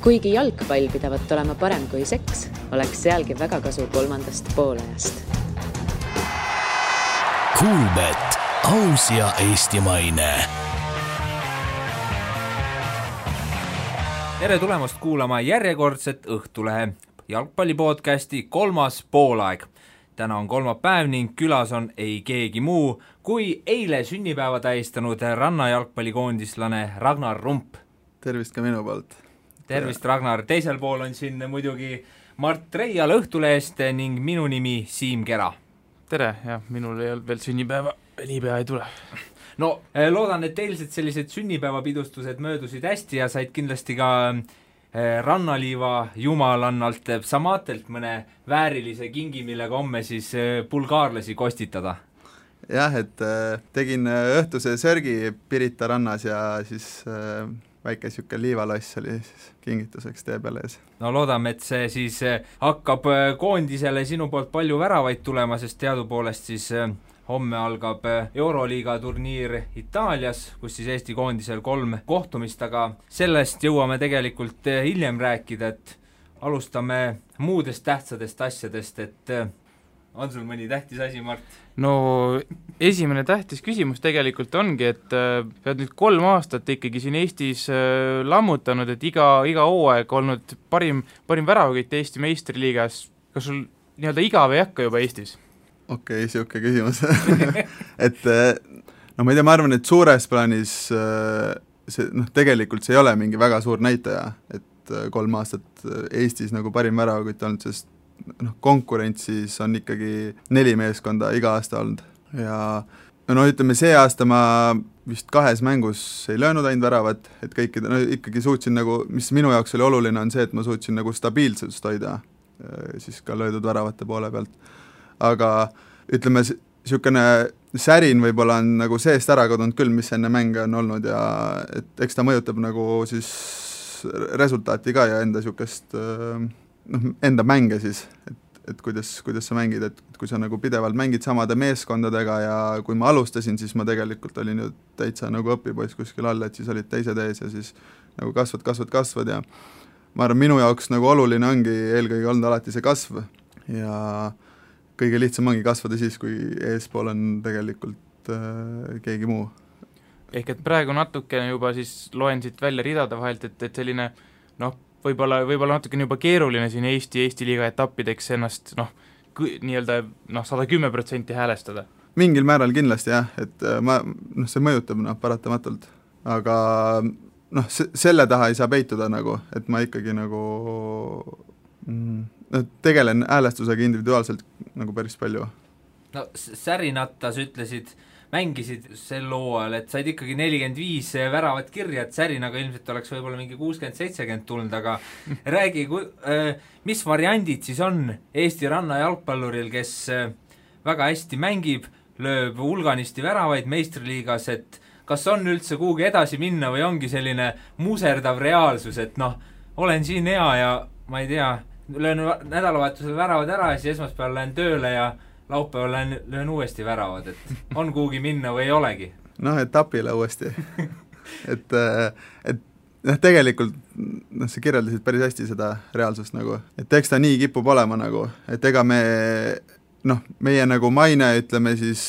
Kuigi jalgpall pidavat olema parem kui seks, oleks sealgi väga kasu kolmandast poolajast. Kuulbet, aus ja eestimaine. Tere tulemast kuulama järjekordset Õhtulehe jalgpallipodcasti 3. poolaeg. Täna on kolmapäev ning külas on ei keegi muu kui eile sünnipäeva tähistanud rannajalgpallikoondislane Ragnar Rump. Tervist ka minu poolt. Tervist, Ragnar. Teisel pool on siin muidugi Mart Reial Õhtulehest ning minu nimi Siim Kera. Tere, ja minul ei olnud veel sünnipäeva, niipea ei tule. No, loodan, et eilsed sellised sünnipäevapidustused möödusid hästi ja said kindlasti ka rannaliiva jumalannalt Samaatelt mõne väärilise kingi, millega homme siis bulgaarlasi kostitada. Jah, et tegin õhtuse sörgi Pirita rannas ja siis väike siuke liivaloss oli siis kingituseks tee peale ees. No loodame, et see siis hakkab koondisele sinu poolt palju väravaid tulema, sest teadupoolest siis homme algab Euroliiga turniir Itaalias, kus siis Eesti koondisel 3 kohtumist, aga sellest jõuame tegelikult hiljem rääkida, et alustame muudest tähtsatest asjadest, et on sul mõni tähtis asi, Mart? No esimene tähtis küsimus tegelikult ongi, et pead nüüd 3 aastat ikkagi siin Eestis lammutanud, et iga hooaeg olnud parim väravakütt Eesti meistriliigas. Kas sul nii-öelda igav ei hakka juba Eestis? Okei, siuke küsimus. Et no ma ei tea, ma arvan, et suures plaanis tegelikult see ei ole mingi väga suur näitaja, et 3 aastat Eestis nagu parim väravakütt olnud, sest konkurentsis on ikkagi 4 meeskonda iga aasta olnud ja ütleme, see aasta ma vist 2 mängus ei löönud ainult väravat, et kõikide, ikkagi suutsin nagu, mis minu jaoks oli oluline, on see, et ma suutsin nagu stabiilsust hoida siis ka löödud väravate poole pealt. Aga ütleme, siukene särin võib-olla on nagu seest ära kadunud küll, mis enne mänge on olnud ja et eks ta mõjutab nagu siis resultaati ka ja enda siukest enda mänge siis, et kuidas sa mängid, et kui sa nagu pidevalt mängid samade meeskondadega ja kui ma alustasin, siis ma tegelikult olin ju täitsa nagu õpipoiss kuskil all, et siis olid teised ees ja siis nagu kasvad ja ma arvan, minu jaoks nagu oluline ongi eelkõige olnud alati see kasv ja kõige lihtsam ongi kasvada siis, kui eespool on tegelikult keegi muu. Ehk et praegu natukene juba siis loen siit välja ridade vahelt, et selline võib-olla natukene juba keeruline siin Eesti liiga etappideks ennast nii-öelda 110% häälestada. Mingil määral kindlasti jah, et see mõjutab paratamatult, aga selle taha ei saa peituda nagu, et ma ikkagi nagu tegelen häälestusega individuaalselt nagu päris palju. No Särinatta sa ütlesid, mängisid sel hooajal, et said ikkagi 45 väravat kirja, et Särinaga ilmselt oleks võib-olla mingi 60-70 tulnud, aga räägi, mis variandid siis on Eesti ranna jalgpalluril, kes väga hästi mängib, lööb hulganisti väravaid meistriliigas, et kas on üldse kuhugi edasi minna või ongi selline muserdav reaalsus, et olen siin hea ja ma ei tea, löön nädalavahetusel väravad ära ja siis esmaspäeval lähen tööle ja laupäeval löön uuesti väravad, et on kuhugi minna või ei olegi? Etapile uuesti. et tegelikult sa kirjeldasid päris hästi seda reaalsust nagu, et eks ta nii kipub olema nagu, et ega meie nagu maine, ütleme siis,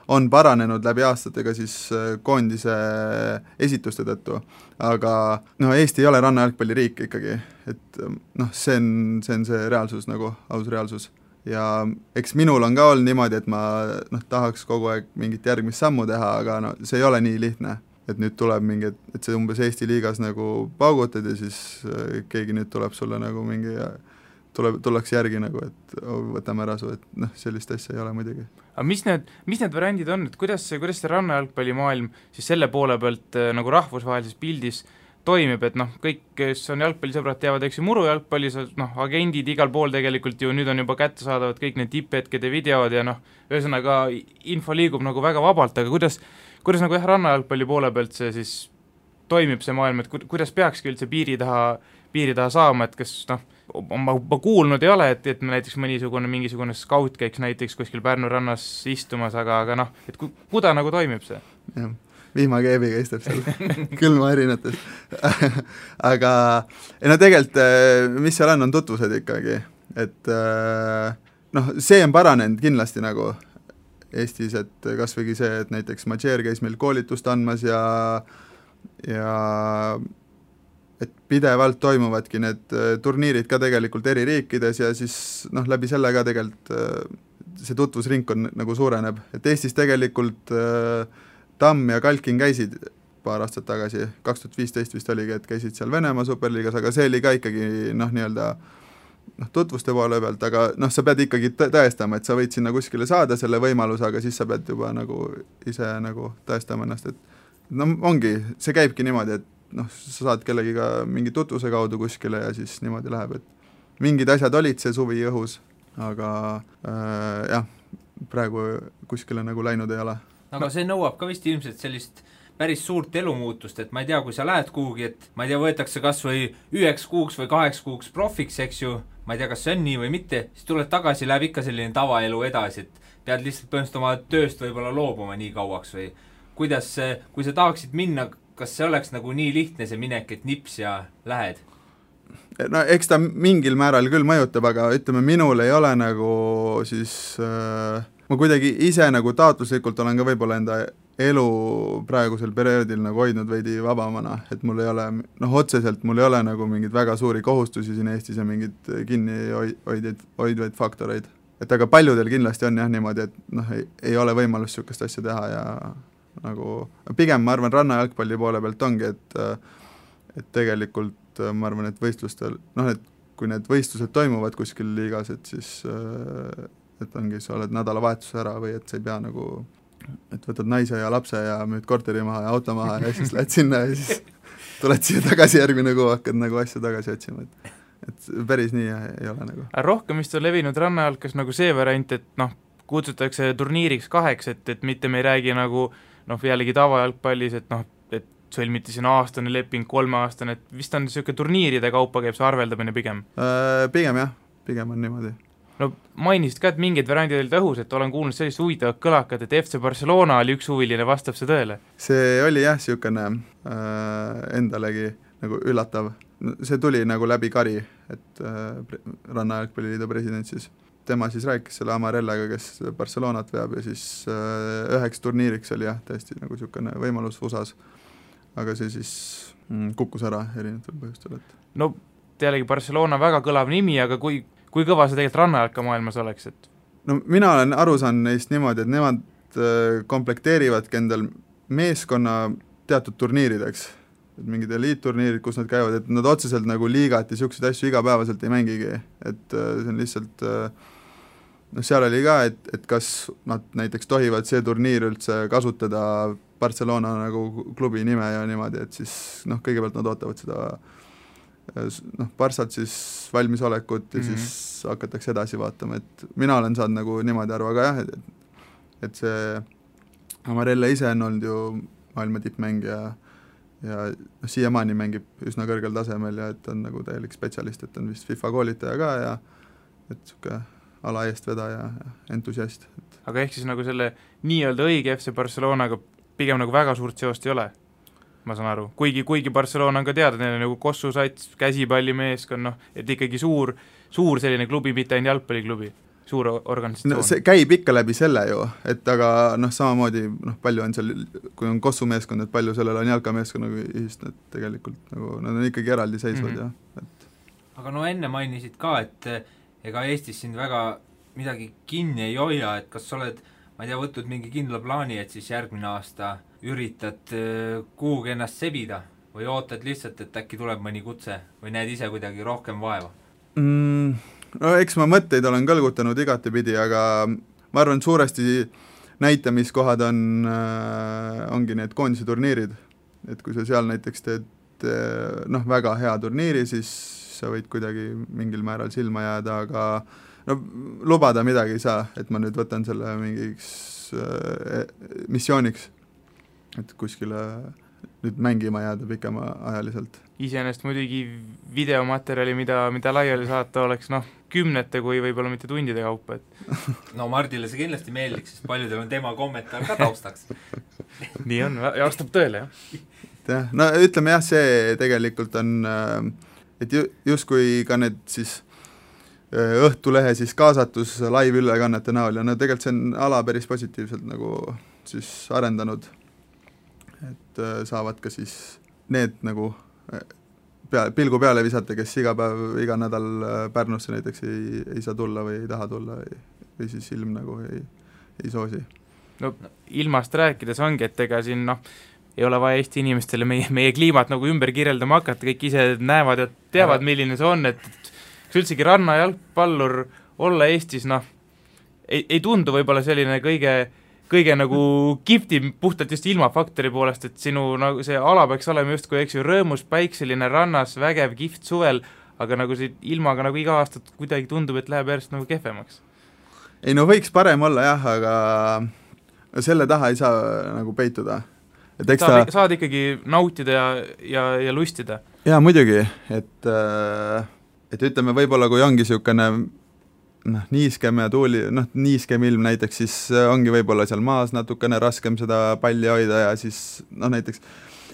on paranenud läbi aastatega siis koondise esituste tõttu, aga Eesti ei ole rannajalgpalliriik ikkagi, et see on see reaalsus nagu, aus reaalsus. Ja eks minul on ka olnud niimoodi, et ma tahaks kogu aeg mingit järgmist sammu teha, aga see ei ole nii lihtne, et nüüd tuleb mingi, et see umbes Eesti liigas nagu paugutad ja siis keegi nüüd tuleb sulle nagu mingi tullakse järgi nagu, et võtame ära su, et sellist asja ei ole muidugi. Aga mis need variandid on, et kuidas see rannajalgpallimaailm siis selle poole pealt nagu rahvusvahelises pildis toimib, et kõik, kes on jalgpallisõbrad, teavad, eks ju murujalgpallis, agendid igal pool tegelikult ju nüüd on juba kättesaadavad kõik need tipphetkede videod ja ühesõnaga info liigub nagu väga vabalt, aga kuidas nagu rannajalgpalli poole pealt see siis toimib see maailm, et kuidas peakski üldse piiri taha saama, et kas ma kuulnud ei ole, et näiteks mingisugune skaut käiks näiteks kuskil Pärnu rannas istumas, aga et kuda nagu toimib see? Jah. vihmakeebiga istab seal külma erinetes aga no tegelikult, mis seal on tutvused ikkagi, et noh, see on paranenud kindlasti nagu Eestis, et kas võigi see, et näiteks Madžeer käis meil koolitust andmas ja et pidevalt toimuvadki need turniirid ka tegelikult eri riikides ja siis noh, läbi selle ka tegelikult see tutvusringkond nagu suureneb, et Eestis tegelikult Tamm ja Kalkin käisid paar aastat tagasi, 2015 vist oligi, et käisid seal Venemaa superliigas, aga see oli ka ikkagi noh, nii-öelda tutvuste poole pealt, aga noh, sa pead ikkagi tõestama, et sa võid sinna kuskile saada selle võimaluse, aga siis sa pead juba nagu ise nagu tõestama ennast, et no ongi, see käibki niimoodi, et noh, sa saad kellegiga mingi tutvuse kaudu kuskile ja siis niimoodi läheb, et mingid asjad olid see suvi õhus, aga jah, praegu kuskile nagu läinud ei ole. Aga see nõuab ka vist ilmselt sellist päris suurt elumuutust, et ma ei tea, kui sa lähed kuhugi, et ma ei tea, võetakse kas või 1 kuuks või 8 kuuks profiks, eks ju, ma ei tea, kas see on nii või mitte, siis tuled tagasi, läheb ikka selline tavaelu edasi, et pead lihtsalt põhimõtteliselt oma tööst võib-olla loobuma nii kauaks või kuidas, kui sa tahaksid minna, kas see oleks nagu nii lihtne see minek, et nips ja lähed? No eks ta mingil määral küll mõjutab, aga ütleme, minul ei ole nagu siis ma kuidagi ise nagu taotluslikult olen ka võib-olla enda elu praegusel perioodil nagu hoidnud veidi vabamana, et mul ei ole, noh otseselt mul ei ole nagu mingeid väga suuri kohustusi siin Eestis ja mingeid kinni hoidvaid faktoreid. Et aga paljudel kindlasti on jah niimoodi, et noh, ei ole võimalust niisugust asja teha ja nagu pigem ma arvan rannajalgpalli poole pealt ongi, et tegelikult ma arvan, et võistlustel, noh, et kui need võistlused toimuvad kuskil liigas, et siis et ongi, sa oled nädalavahetuse ära või et sa ei pea nagu, et võtad naise ja lapse ja müüd korteri maha ja auto maha ja siis lähed sinna ja siis tuled siia tagasi järgmine kuu, hakkad nagu asja tagasi otsima, et päris nii ei ole nagu. Rohkem vist on levinud rannajalkas nagu see variant, et noh, kutsutakse turniiriks 2, et mitte me ei räägi nagu noh, jällegi tavajalgpallis, et noh, et sõlmiti siin aastane leping, 3-aastane, et vist on niisugune turniiride kaupa käib see arveldamine pigem? Pigem jah, pigem on niimoodi. No mainisid ka, et mingid variandid olid õhus, et olen kuulnud sellist huvitavat kõlakat, et FC Barcelona oli üks huviline, vastab see tõele? See oli jah, niisugune endalegi nagu üllatav. See tuli nagu läbi Kari, et Rannajalgpalliliidu president siis. Tema siis rääkis selle Amarellaga, kes Barcelonat veab ja siis üheks turniiriks oli jah, tõesti nagu niisugune võimalus USA-s. Aga see siis kukkus ära erinevatel põhjustel. No jällegi Barcelona väga kõlav nimi, aga kui kõva see tegelikult rannajalka maailmas oleks? Et no mina olen aru saanud neist niimoodi, et nemad komplekteerivadki endal meeskonna teatud turniirideks, et mingid eliitturniirid, kus nad käivad, et nad otseselt nagu liigat ja niisuguseid asju igapäevaselt ei mängigi, et see on lihtsalt noh, seal oli ka, et kas nad näiteks tohivad see turniir üldse kasutada Barcelona nagu klubi nime ja niimoodi, et siis noh, kõigepealt nad ootavad seda noh, Barssalt siis valmisolekut ja siis hakatakse edasi vaatama, et mina olen saanud nagu niimoodi aru, aga jah, et see Amarella ise on olnud ju maailma tippmängija ja siiamaani mängib üsna kõrgel tasemel ja et on nagu täielik spetsialist, et on vist FIFA koolitaja ka ja et niisugune ala eestvedaja ja entusiast. Aga ehk siis nagu selle nii-öelda õige FC Barcelonaga pigem nagu väga suurt seost ei ole? Ma saan aru, kuigi Barcelona on ka teada, neil on nagu Kossu sats, käsipallimeeskond, noh, et ikkagi suur selline klubi, mitte ainult jalgpalliklubi, suur organisatsioon. No see käib ikka läbi selle ju, et aga noh, samamoodi noh, palju on seal, kui on Kossu meeskond, et palju sellel on jalkameeskonnaga ühist, et tegelikult nagu nad on ikkagi eraldi seisvad ja et. Aga no enne mainisid ka, et ega Eestis sind väga midagi kinni ei hoia, et kas sa oled, ma ei tea, võtnud mingi kindla plaani, et siis järgmine aasta üritad kuhugi ennast sebida või ootad lihtsalt, et äkki tuleb mõni kutse või näed ise kuidagi rohkem vaeva? No eks ma mõtteid olen kõlgutanud igatepidi, aga ma arvan, suuresti näitamiskohad ongi need koondise turniirid, et kui sa seal näiteks teed noh, väga hea turniiri, siis sa võid kuidagi mingil määral silma jääda, aga no lubada midagi ei saa, et ma nüüd võtan selle mingiks missiooniks, et kuskile nüüd mängima jääda pikemaajaliselt. Iseenesest muidugi videomaterjali, mida laiali saata oleks kümnete kui võib-olla mitte tundide kaupa, et no Mardile see kindlasti meeldiks, sest paljudel on tema kommentaar ka taustaks. nii on, ja vastab tõele, jah. No ütleme jah, see tegelikult on, et justkui ka need siis Õhtulehe siis kaasatus live-ülekannete näol ja no tegelikult see on ala päris positiivselt nagu siis arendanud, et saavad ka siis need nagu pilgu peale visata, kes iga päev, iga nädal Pärnusse näiteks ei saa tulla või ei taha tulla või siis ilm nagu ei soosi. No ilmast rääkides ongi, et ega siin ei ole vaja Eesti inimestele meie kliimat nagu ümber kirjeldama hakata, kõik ise näevad ja teavad, milline see on, et üldsegi rannajalgpallur olla Eestis, ei tundu võib-olla selline kõige nagu kihvtim puhtalt just ilmafaktori poolest, et sinu nagu see ala peaks olema justkui, eks ju, rõõmus, päikseline, rannas, vägev, kihvt suvel, aga nagu see ilmaga nagu iga aastat kuidagi tundub, et läheb järjest nagu kehvemaks. Ei no võiks parem olla jah, aga selle taha ei saa nagu peituda. Et saad ikkagi nautida ja lustida. Jaa, muidugi, et ütleme, võib-olla kui ongi niisugune niiskem ja tuuli, niiskem ilm näiteks, siis ongi võib-olla seal maas natukene raskem seda palli hoida ja siis näiteks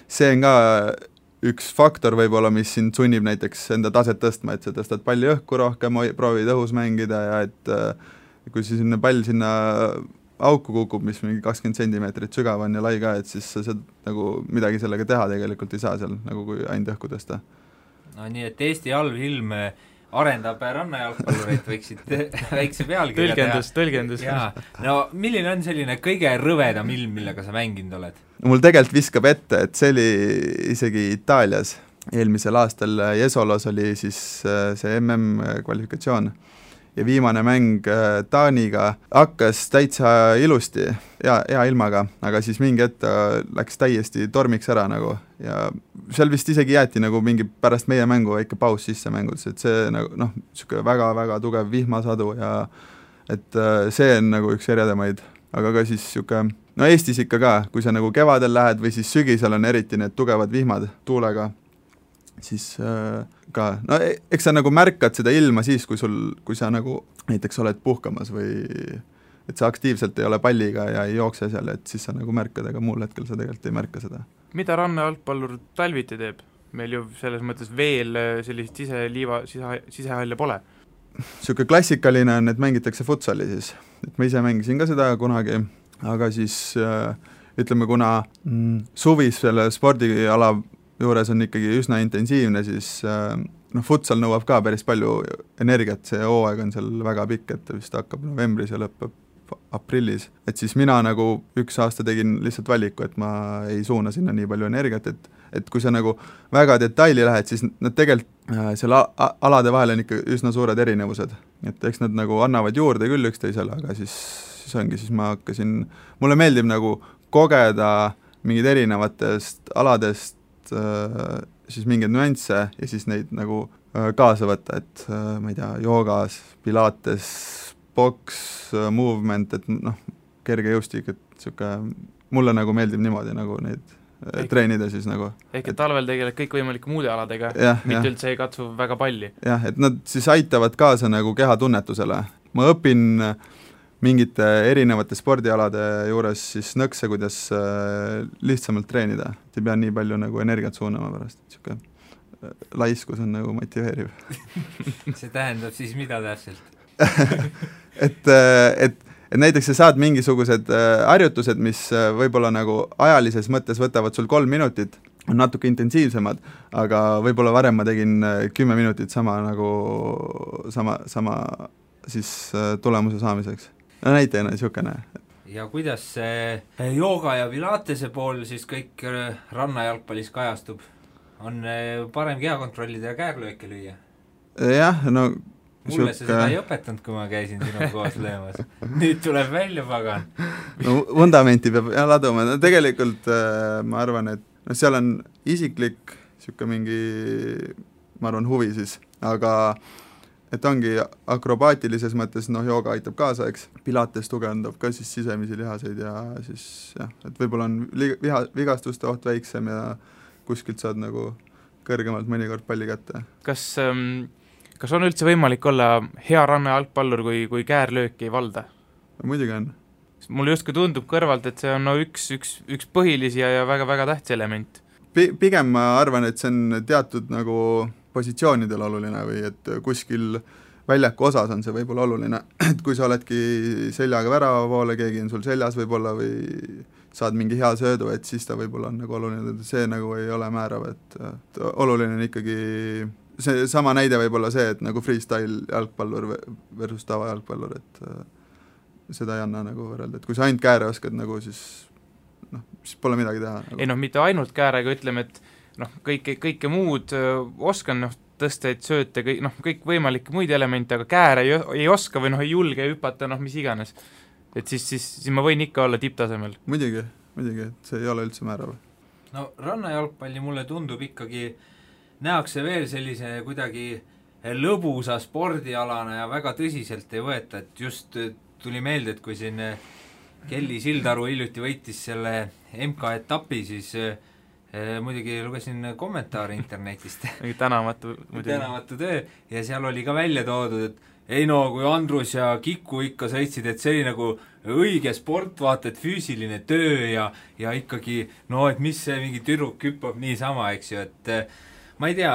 see on ka üks faktor võib-olla, mis sind sunnib näiteks enda taset tõstma, et sa tõstad palli õhku rohkem, proovid õhus mängida ja et kui sinna pall sinna auku kukub, mis mingi 20 sentimeetrit sügav on ja lai ka, et siis sa nagu midagi sellega teha tegelikult ei saa seal, nagu kui ainult õhku tõsta. No nii, et Eesti halb ilm arendab rannajalgpallureid, võiksid väikse pealkirja Tõlgendus. Jaa. No milline on selline kõige rõvedam ilm, millega sa mänginud oled? Mul tegelikult viskab ette, et see oli isegi Itaalias. Eelmisel aastal Jesolos oli siis see MM-kvalifikatsioon ja viimane mäng Taaniga hakkas täitsa ilusti, hea ilmaga, aga siis mingi hetk läks täiesti tormiks ära nagu ja seal vist isegi jäeti nagu mingi pärast meie mängu väike paus sisse mängudes, et see nagu niisugune väga-väga tugev vihmasadu ja et see on nagu üks eredamaid, aga ka siis niisugune, Eestis ikka ka, kui sa nagu kevadel lähed või siis sügisel on eriti need tugevad vihmad tuulega, siis ka, eks sa nagu märkad seda ilma siis, kui sa nagu näiteks oled puhkamas või et sa aktiivselt ei ole palliga ja ei jookse seal, et siis sa nagu märkad, aga muul hetkel sa tegelikult ei märka seda. Mida rannajalgpallur talviti teeb? Meil ju selles mõttes veel sellist sisehalle pole. Siuke klassikaline on, et mängitakse futsali siis, et ma ise mängisin ka seda kunagi, aga siis ütleme, kuna suvis selle spordiala juures on ikkagi üsna intensiivne, siis futsal nõuab ka päris palju energiat, see hooaeg on seal väga pikk, et vist hakkab novembris ja lõppeb aprillis, et siis mina nagu üks aasta tegin lihtsalt valiku, et ma ei suuna sinna nii palju energiat, et kui sa nagu väga detaili lähed, siis nad tegelikult seal alade vahel on ikka üsna suured erinevused, et eks nad nagu annavad juurde küll üksteisele, aga siis ongi, siis ma hakkasin, mulle meeldib nagu kogeda mingid erinevatest aladest siis mingeid nüansse ja siis neid nagu kaasa võtta, et ma ei tea, joogas, pilates, boks, movement, et kerge jõustik, et siuke, mulle nagu meeldib niimoodi nagu neid treenida siis nagu. Ehk et talvel tegeled kõik võimalike muude aladega, mitte üldse ei katsu väga palli. Jah, et nad siis aitavad kaasa nagu kehatunnetusele. Ma õpin mingite erinevate spordialade juures siis nõkse, kuidas lihtsamalt treenida. Ei pea nii palju nagu energiat suunama pärast, et siuke laiskus on nagu motiveeriv. See tähendab siis mida täpselt? et näiteks sa saad mingisugused harjutused, mis võib-olla nagu ajalises mõttes võtavad sul 3 minutit, on natuke intensiivsemad, aga võib-olla varem ma tegin 10 minutit sama siis tulemuse saamiseks. Näitena niisugune. Ja kuidas see jooga ja pilatese pool siis kõik rannajalgpallis kajastub? On parem keha kontrollida ja käärlööke lüüa? Jah, no mulle sa seda ei õpetanud, kui ma käisin sinu koos löömas. Nüüd tuleb välja, pagan. No vundamenti peab laduma. No, tegelikult ma arvan, et seal on isiklik siuke mingi, ma arvan, huvi siis, aga et ongi akrobaatilises mõttes, jooga aitab kaasa, eks, pilates tugevdab ka siis sisemisi lihaseid ja siis jah, et võib-olla on vigastuste oht väiksem ja kuskilt saad nagu kõrgemalt mõnikord palli kätte. Kas on üldse võimalik olla hea rannajalgpallur, kui käärlööki ei valda? Muidugi on. Mulle justkui tundub kõrvalt, et see on üks põhilisi ja väga-väga tähtis element. Pigem ma arvan, et see on teatud nagu positsioonidel oluline või et kuskil väljaku osas on see võib-olla oluline, et kui sa oledki seljaga värava poole, keegi on sul seljas võib-olla või saad mingi hea söödu, et siis ta võib-olla on nagu oluline, et see nagu ei ole määrav, et oluline on ikkagi see sama näide võib-olla see, et nagu freestyle jalgpallur versus tava jalgpallur, et seda ei anna nagu võrrelda, et kui sa ainult kääre oskad nagu siis pole midagi teha nagu. Ei mitte ainult käärega, ütleme, et kõike muud oskan, tõsteid, sööte, kõik võimalikke muid elemente, aga kääre ei oska või ei julge hüpata, mis iganes. Et siis ma võin ikka olla tipptasemel. Muidugi, et see ei ole üldse määrav. No rannajalgpalli mulle tundub ikkagi, nähakse veel sellise kuidagi lõbusa spordialana ja väga tõsiselt ei võeta, et just tuli meelde, et kui siin Kelly Sildaru hiljuti võitis selle MK-etapi, siis muidugi lugesin kommentaare internetist. Tänamatu töö ja seal oli ka välja toodud, et ei kui Andrus ja Kiku ikka sõitsid, et see oli nagu õige sport, vaata, et füüsiline töö ja ikkagi, et mis see mingi tüdruk hüppab niisama, eks ju, et ma ei tea,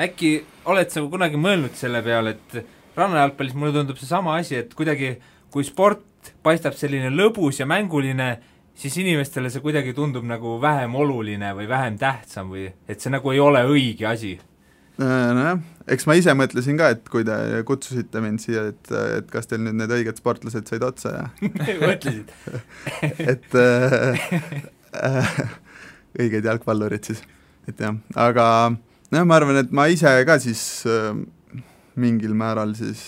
äkki oled sa kunagi mõelnud selle peale, et rannajalgpallis mulle tundub see sama asi, et kuidagi kui sport paistab selline lõbus ja mänguline, siis inimestele see kuidagi tundub nagu vähem oluline või vähem tähtsam või et see nagu ei ole õige asi. Nojah, eks ma ise mõtlesin ka, et kui te kutsusite mind siia, et kas teil nüüd need õiged sportlased said otsa ja mõtlesid? et õiged jalgpallurid siis, et jah, aga ma arvan, et ma ise ka siis mingil määral siis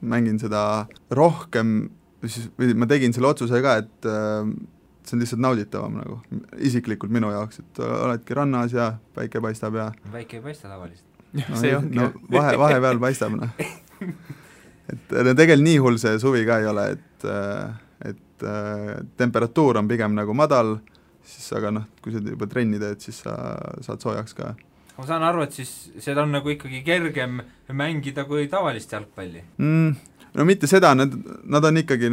mängin seda rohkem, või ma tegin selle otsuse ka, et see on lihtsalt nauditavam nagu, isiklikult minu jaoks, et oledki rannas ja päike paistab ja päike ei paista tavaliselt. See ongi. Vahepeal paistab, et tegelikult nii hull see suvi ka ei ole, et temperatuur on pigem nagu madal, siis aga kui sa juba trenni teed, siis sa saad soojaks ka. Ma saan aru, et siis seda on nagu ikkagi kergem mängida kui tavalist jalgpalli. No mitte seda, nad on ikkagi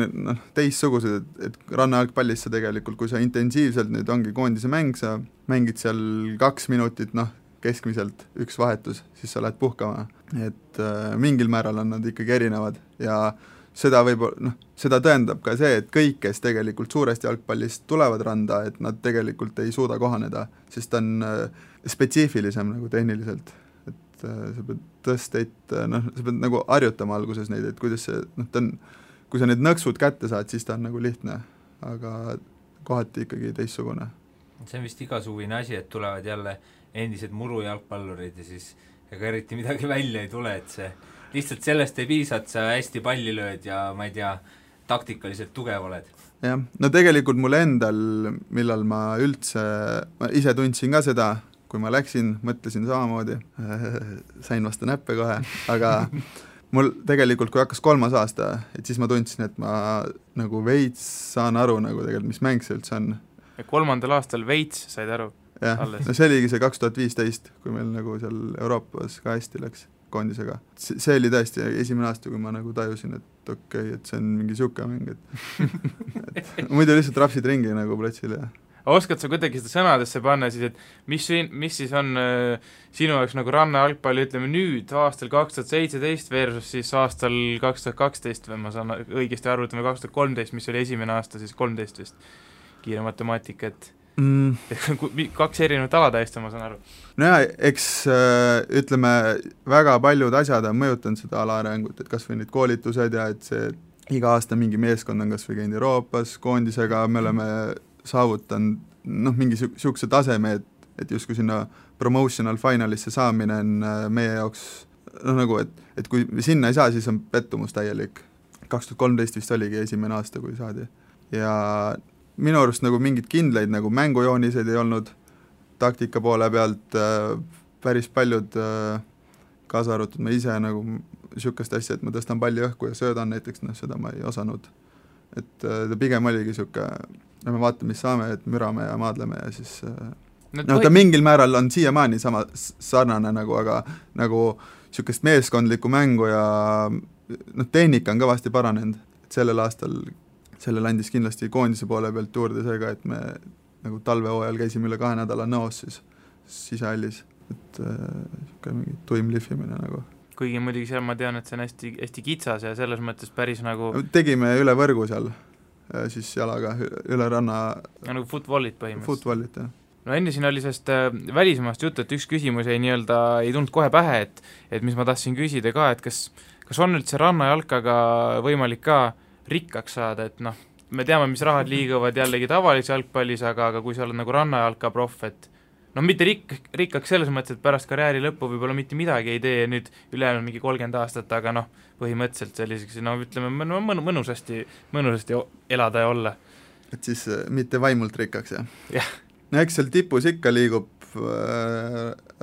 teissugused, et rannajalgpallis sa tegelikult, kui sa intensiivselt nüüd ongi koondise mäng, sa mängid seal 2 minutit, keskmiselt üks vahetus, siis sa lähed puhkama. Et mingil määral on nad ikkagi erinevad ja seda seda tõendab ka see, et kõik, kes tegelikult suurest jalgpallist tulevad randa, et nad tegelikult ei suuda kohaneda, sest ta on spetsiifilisem nagu tehniliselt. Sa pead tõsteid, sa pead nagu harjutama alguses neid, et kuidas see, kui sa need nõksud kätte saad, siis ta on nagu lihtne, aga kohati ikkagi teissugune. See on vist igasugune asi, et tulevad jälle endised murujalgpallurid ja siis ega eriti midagi välja ei tule, et see lihtsalt sellest ei piisa, et sa hästi palli lööd ja ma ei tea, taktikaliselt tugev oled. Jah, tegelikult mul endal, millal ma ise tundsin ka seda, kui ma läksin, mõtlesin samamoodi, sain vastu näppe kohe, aga mul tegelikult, kui hakkas 3. aasta, et siis ma tundsin, et ma nagu veits saan aru nagu tegelikult, mis mäng see üldse on. Ja 3. aastal veits said aru? Jah, see oligi see 2015, kui meil nagu seal Euroopas ka hästi läks koondisega. See oli tõesti esimene aasta, kui ma nagu tajusin, et okei, et see on mingi siuke mäng, et muidu lihtsalt rapsid ringi nagu platsil ja oskad sa kuidagi seda sõnadesse panna siis, et mis siis on sinu jaoks nagu rannajalgpalli, ütleme nüüd aastal 2017 versus siis aastal 2012 või ma saan õigesti aru, ütleme 2013, mis oli esimene aasta, siis 13 vist kiire matemaatika, et 2 erinevat ala täiesti, ma saan aru. No ja, eks ütleme, väga paljud asjad on mõjutanud seda ala arengut, et kas või need koolitused ja et see iga aasta mingi meeskond on kas või käinud Euroopas koondisega, me oleme saavutanud mingi siukse taseme, et justkui sinna promotional finalisse saamine on meie jaoks nagu, et kui sinna ei saa, siis on pettumus täielik. 2013 vist oligi esimene aasta, kui saadi. Ja minu arust nagu mingid kindlaid nagu mängujooniseid ei olnud taktika poole pealt, päris paljud kaasa arvatud ma ise nagu niisugust asja, et ma tõstan palli õhku ja söödan näiteks, seda ma ei osanud. Et ta pigem oligi niisugune, me vaatame, mis saame, et mürame ja maadleme ja siis ta mingil määral on siiamaani sama sarnane aga nagu niisugust meeskondlikku mängu ja tehnika on kõvasti paranenud, et sellel aastal sellel andis kindlasti koondise poole pealt juurde seega, et me nagu talvehooajal käisime üle 2 nädala nõos siis sisehallis, et niisugune mingi tuim lihvimine nagu. Kuigi muidugi seal ma tean, et see on hästi, hästi kitsas ja selles mõttes päris nagu tegime üle võrgu seal, siis jalaga üle ranna nagu footballit põhimõtteliselt. Footballit, jah. No enne siin oli sellest välismaast juttu, et üks küsimus ei tulnud kohe pähe, et mis ma tahtsin küsida ka, et kas on üldse rannajalkaga võimalik ka rikkaks saada, et me teame, mis rahad liiguvad jällegi tavalise jalgpallis, aga kui sa oled nagu rannajalka proff, et mitte rikkaks selles mõttes, et pärast karjääri lõppu võib-olla mitte midagi ei tee nüüd ülejäänud mingi 30 aastat, aga põhimõtteliselt selliseks, ütleme, mõnusasti elada ja olla. Et siis mitte vaimult rikkaks, jah? Jah. No eks seal tipus ikka liigub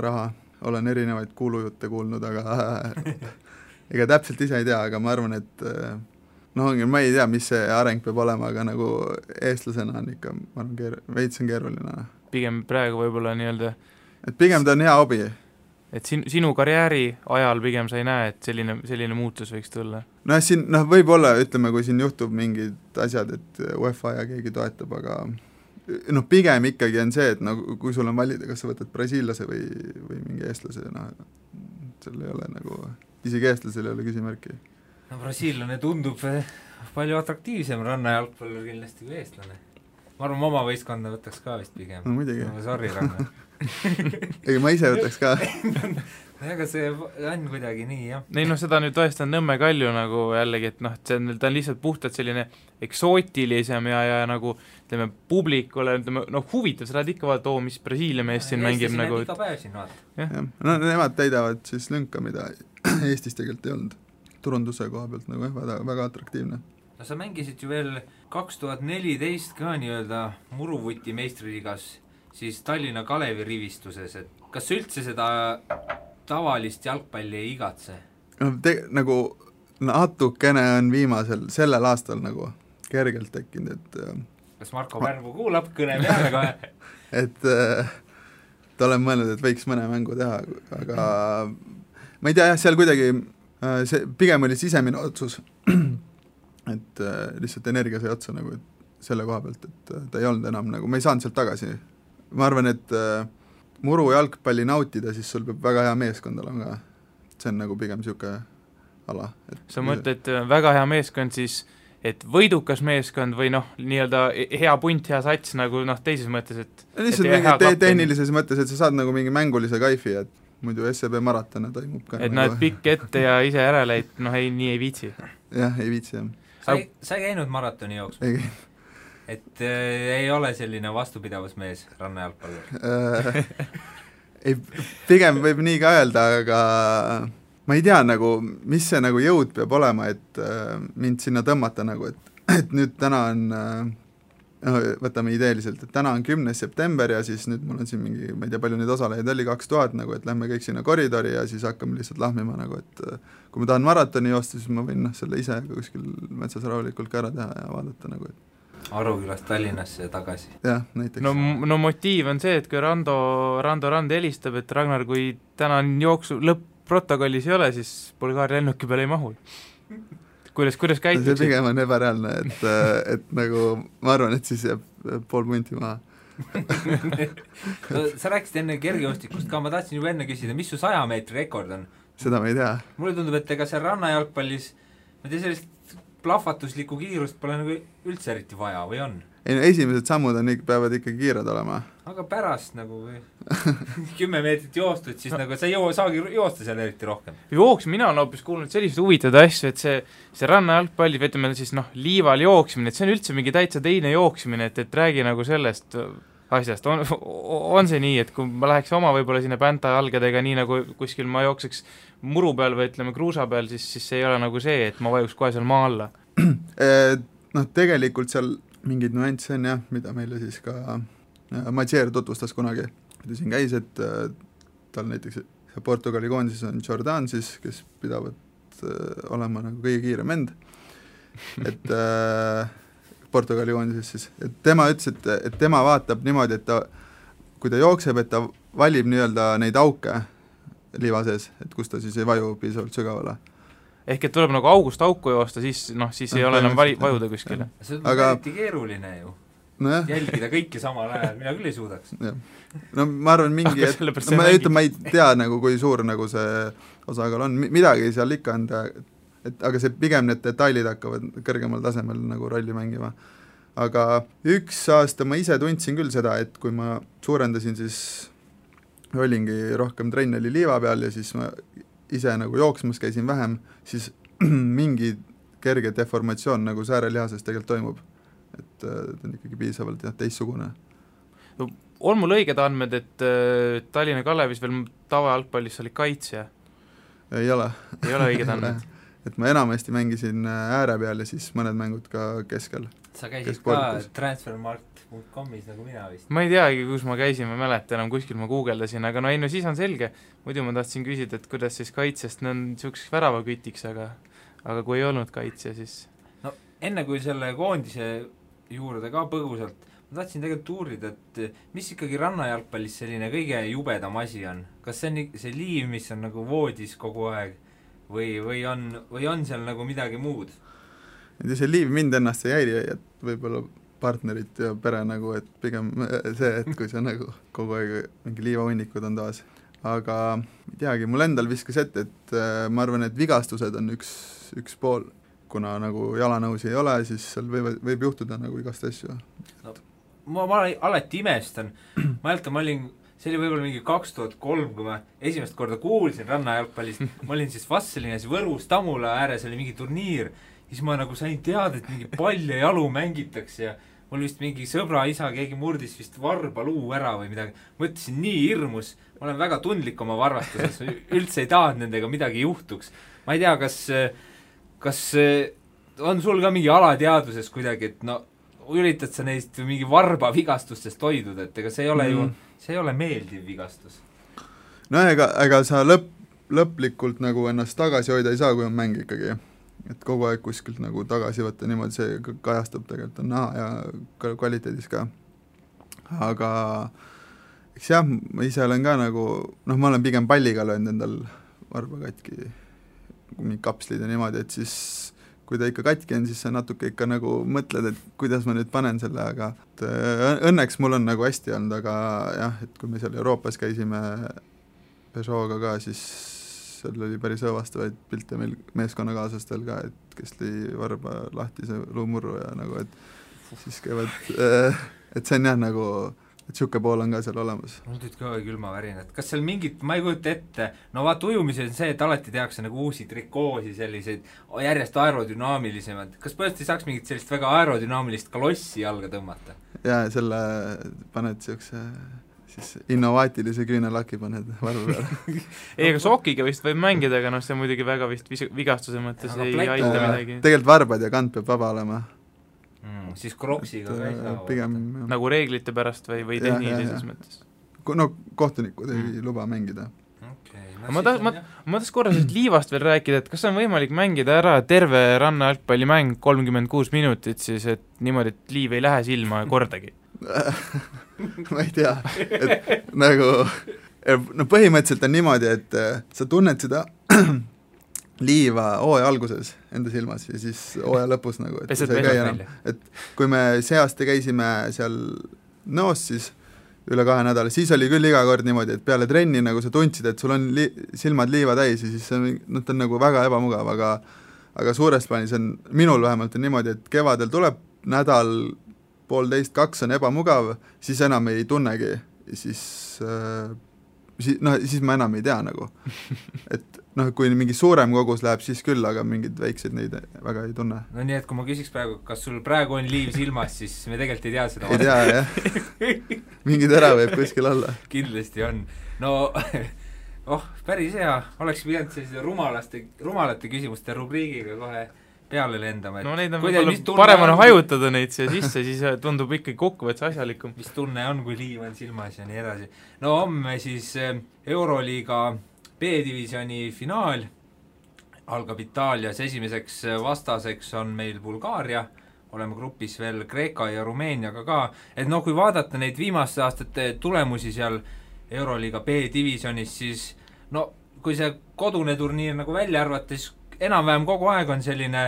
raha, olen erinevaid kuulujutte kuulnud, aga ega täpselt ise ei tea, aga ma arvan, et ma ei tea, mis see areng peab olema, aga nagu eestlasena on ikka, ma arvan, veits on keeruline. Pigem praegu võib-olla et pigem ta on hea hobi. Et sinu karjääri ajal pigem sa ei näe, et selline muutus võiks tulla? Siin võib-olla, ütleme, kui siin juhtub mingid asjad, et UEFA ja keegi toetab, aga pigem ikkagi on see, et kui sul on valida, kas sa võtad brasiillase või mingi eestlase, seal ei ole nagu, isegi eestlasel ei ole küsimärki. Brasiillane tundub palju atraktiivsem rannajalgpallur kindlasti kui eestlane. Ma arvan, oma võistkonda võtaks ka vist pigem. No muidugi. Sorry, Ranna. Ega ma ise võtaks ka. Aga see on kuidagi nii, jah. Ei, seda nüüd tõesti on Nõmme Kalju nagu jällegi, et ta on lihtsalt puhtalt selline eksootilisem ja nagu, ütleme, publikule, huvitav, sa lähed ikka vaata, mis Brasiilia mees siin mängib nagu. Iga päev siin vaata. Nemad täidavad siis lünka, mida Eestis tegelikult ei olnud. Turunduse koha pealt nagu väga atraktiivne. No sa mängisid ju veel 2014 ka nii-öelda Muruvuti meistriliigas siis Tallinna Kalevi rivistuses, et kas üldse seda tavalist jalgpalli ei igatse? Nagu natukene on viimasel, sellel aastal nagu kergelt tekkinud, et kas Marko Pärmu kuulab kõne peale kohe? et ta olen mõelnud, et võiks mõne mängu teha, aga ma ei tea, jah, seal kuidagi see pigem oli sisemine otsus, et lihtsalt energia sai otsa nagu selle koha pealt, et ta ei olnud enam nagu, ma ei saanud sealt tagasi. Ma arvan, et muru jalgpalli nautida, siis sul peab väga hea meeskond olema ka. See on nagu pigem siuke ala. Sa mõtled väga hea meeskond siis, et võidukas meeskond või nii-öelda hea punt, hea sats nagu teises mõttes, et lihtsalt mingi tehnilises mõttes, et sa saad nagu mingi mängulise kaifi, et muidu SCB maratona toimub ka. Et nagu pikk ette ja ise järele, et nii ei viitsi. Jah, ei viitsi, jah. Sa ei käinud maratoni jooksma? Ei käinud. Et ei ole selline vastupidavusmees rannajalgpallur? Ei, pigem võib nii ka öelda, aga ma ei tea nagu, mis see nagu jõud peab olema, et mind sinna tõmmata nagu, et nüüd täna on, võtame ideeliselt, et täna on 10. september ja siis nüüd mul on siin mingi, ma ei tea, palju neid osalejaid oli 2000 nagu, et lähme kõik sinna koridori ja siis hakkame lihtsalt lahmima nagu, et kui ma tahan maratoni joosta, siis ma võin selle ise kuskil metsas rahulikult ka ära teha ja vaadata nagu, et Arukülast Tallinnasse ja tagasi. Jah, näiteks. No motiiv on see, et kui Rando Rand helistab, et Ragnar, kui täna jooksu lõpp-protokollis ei ole, siis Bulgaaria lennuki peale ei mahu. Kuidas käitud? See pigem on ebareaalne, et nagu ma arvan, et siis jääb pool punti maha. No, sa rääkisid enne kergejoostikust ka, ma tahtsin juba enne küsida, mis su 100 meetri rekord on? Seda ma ei tea. Mulle tundub, et ega see rannajalgpallis, ma tea sellist plahvatuslikku kiirust pole nagu üldse eriti vaja, või on? Ei, no esimesed sammud peavad ikka kiired olema. Aga pärast nagu 10 meetrit joostud, siis nagu sa ei saagi joosta seal eriti rohkem. Mina olen hoopis kuulnud sellised huvitavad asju, et see rannajalgpalli, ütleme siis liival jooksmine, et see on üldse mingi täitsa teine jooksmine, et räägi nagu sellest asjast. On see nii, et kui ma läheks oma võib-olla sinna pänta jalgadega, nii nagu kuskil ma jookseks muru peal või ütleme kruusa peal, siis see ei ole nagu see, et ma vajuks kohe seal maa alla. Tegelikult seal mingid nüansse on jah, mida meile siis ka Matsier tutvustas kunagi, kui ta siin käis, et tal näiteks Portugali koondises on Jordan siis, kes pidavad olema nagu kõige kiirem vend, et Portugali koondises siis, et tema ütles, et tema vaatab niimoodi, et kui ta jookseb, et ta valib nii-öelda neid auke liiva sees, et kus ta siis ei vaju piisavalt sügavale. Ehk et tuleb nagu august auku joosta, siis ei ole enam vajuda kuskile. See on eriti keeruline ju. Jälgida kõiki samal ajal, mina küll ei suudaks. No ma arvan mingi, ma ei tea nagu, kui suur nagu see osakaal on, midagi seal ikka on, aga see pigem need detailid hakkavad kõrgemal tasemel nagu rolli mängima. Aga üks aasta ma ise tundsin küll seda, et kui ma suurendasin, siis olingi rohkem trenn oli liiva peal ja siis ma ise nagu jooksmas käisin vähem, siis mingi kerge deformatsioon nagu säärelihases tegelikult toimub. Et ta on ikkagi piisavalt teissugune. On mul õiged andmed, et Tallinna Kalevis veel tavajalgpallis oli kaitsja? Ei ole. Ei ole õiged andmed? Et ma enamasti mängisin ääre peal ja siis mõned mängud ka keskel. Sa käisid ka transfermarkt.comis nagu mina vist? Ma ei teagi, kus ma käisin, ma mäletan enam, kuskil ma guugeldasin, aga no siis on selge. Muidu ma tahtsin küsida, et kuidas siis kaitsest, on niisuguseks väravakütiks, aga kui ei olnud kaitsja, siis... No enne kui selle koondise juurde ka põgusalt, ma tahtsin tegelikult uurida, et mis ikkagi rannajalgpallis selline kõige jubedam asi on? Kas see on see liiv, mis on nagu voodis kogu aeg või on seal nagu midagi muud? See liiv mind ennast ei häiri, et võib-olla partnerit ja pere nagu, et pigem see, et kui see nagu kogu aeg mingi liivahunnikud on taas. Aga ei teagi, mul endal viskas ette, et ma arvan, et vigastused on üks pool. Kuna nagu jalanõusi ei ole, siis seal võib juhtuda nagu igast asju. No, ma alati imestan, ma olin, see oli võib-olla mingi 2003, kui ma esimest korda kuulsin rannajalgpallist, ma olin siis Vastselinas Võrus Tamula ääres, oli mingi turniir, siis ma nagu sain teada, et mingi pall ja jalu mängitakse ja mul vist mingi sõbra isa, keegi murdis vist varba luu ära või midagi, mõtlesin nii hirmus, ma olen väga tundlik oma varvastuses, üldse ei tahanud nendega midagi juhtuks. Ma ei tea, kas on sul ka mingi alateaduses kuidagi, et no üritad sa neist mingi varba vigastustest hoiduda, et ega see ei ole ju, see ei ole meeldiv vigastus. No ega sa lõplikult nagu ennast tagasi hoida ei saa, kui on mäng ikkagi. Et kogu aeg kuskilt nagu tagasi võtta niimoodi, see kajastub tegelikult on näha ja kvaliteedis ka. Aga eks jah, ma ise olen ka nagu, ma olen pigem palliga löönud endal varba katki mingi kapslid ja niimoodi, et siis kui ta ikka katki on, siis sa natuke ikka nagu mõtled, et kuidas ma nüüd panen selle, aga õnneks mul on nagu hästi olnud, aga jah, et kui me seal Euroopas käisime Peugeot'ga ka, siis seal oli päris õvastavaid pilte meil meeskonnakaaslastel ka, et kes lõi varba lahti see luumurru ja nagu, et siis käivad, et see on jah nagu et siuke pool on ka seal olemas. Mul tüüd ka külmavärinad. Kas seal mingit, ma ei kujuta ette, no vaat ujumise on see, et alati tehakse nagu uusi trikoosi, selliseid järjest aerodünaamilisemad. Kas põhjasti saaks mingit sellist väga aerodünaamilist kalossi jalga tõmmata? Jaa, selle paned siukse siis innovaatilise küünelaki paned varru peale. Ei, aga sokiga vist võib mängida, aga see muidugi väga vist vigastuse mõttes ei aita midagi. Tegelikult varbad ja kant peab vaba olema. Siis kroksiga ka ei saa pigem, nagu reeglite pärast või tehnilises mõttes? No kohtunikud ei luba mängida. Okay, ma tahaks korra liivast veel rääkida, et kas on võimalik mängida ära terve rannajalgpallimäng 36 minutit siis, et niimoodi, et liiv ei lähe silma kordagi? Ma ei tea, et nagu no põhimõtteliselt on niimoodi, et sa tunned seda liiva hooaja alguses enda silmas ja siis hooaja lõpus nagu, et see ei käi enam. Et kui me see aasta käisime seal Nõos siis üle 2 nädala, siis oli küll iga kord niimoodi, et peale trenni nagu sa tundsid, et sul on silmad liiva täis ja siis see on nagu väga ebamugav, aga suures plaanis on, minul vähemalt on niimoodi, et kevadel tuleb nädal, 1,5–2 on ebamugav, siis enam ei tunnegi ja siis ma enam ei tea nagu, et kui mingi suurem kogus läheb, siis küll, aga mingid väiksed neid väga ei tunne. No nii, et kui ma küsiks praegu, kas sul praegu on liiv silmas, siis me tegelikult ei tea seda. Ei tea, jah. Mingi tera võib kuskil olla. Kindlasti on. No, päris hea. Oleks pidanud sellise rumalate küsimuste rubriigiga kohe peale lendama. No neid on parem on hajutada neid siia sisse, siis tundub ikkagi kokkuvõttes asjalikum. Mis tunne on, kui liiv on silmas ja nii edasi. No homme siis Euroliiga B-divisjoni finaal algab Itaalias, esimeseks vastaseks on meil Bulgaaria, oleme grupis veel Kreeka ja Rumeeniaga ka, et no kui vaadata neid viimaste aastate tulemusi seal Euroliiga B-divisionis, siis no kui see kodune turniir nagu välja arvata, siis enam-vähem kogu aeg on selline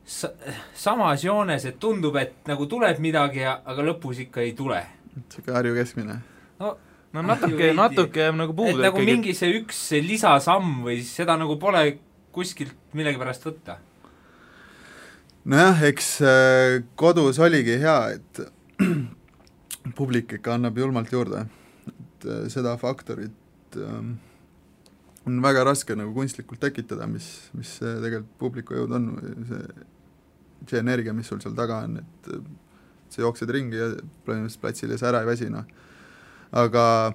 samas joones, et tundub, et nagu tuleb midagi, aga lõpus ikka ei tule. Siuke Harju keskmine. No natuke jääb nagu puudu. Et nagu mingi see üks lisasamm või seda nagu pole kuskilt millegi pärast võtta. Nojah, eks kodus oligi hea, et publik ikka annab julmalt juurde. Et seda faktorit on väga raske nagu kunstlikult tekitada, mis tegelikult publiku jõud on, see energia, mis sul seal taga on, et sa jooksed ringi ja põhimõtteliselt platsil ja sa ära ei väsi, noh. Aga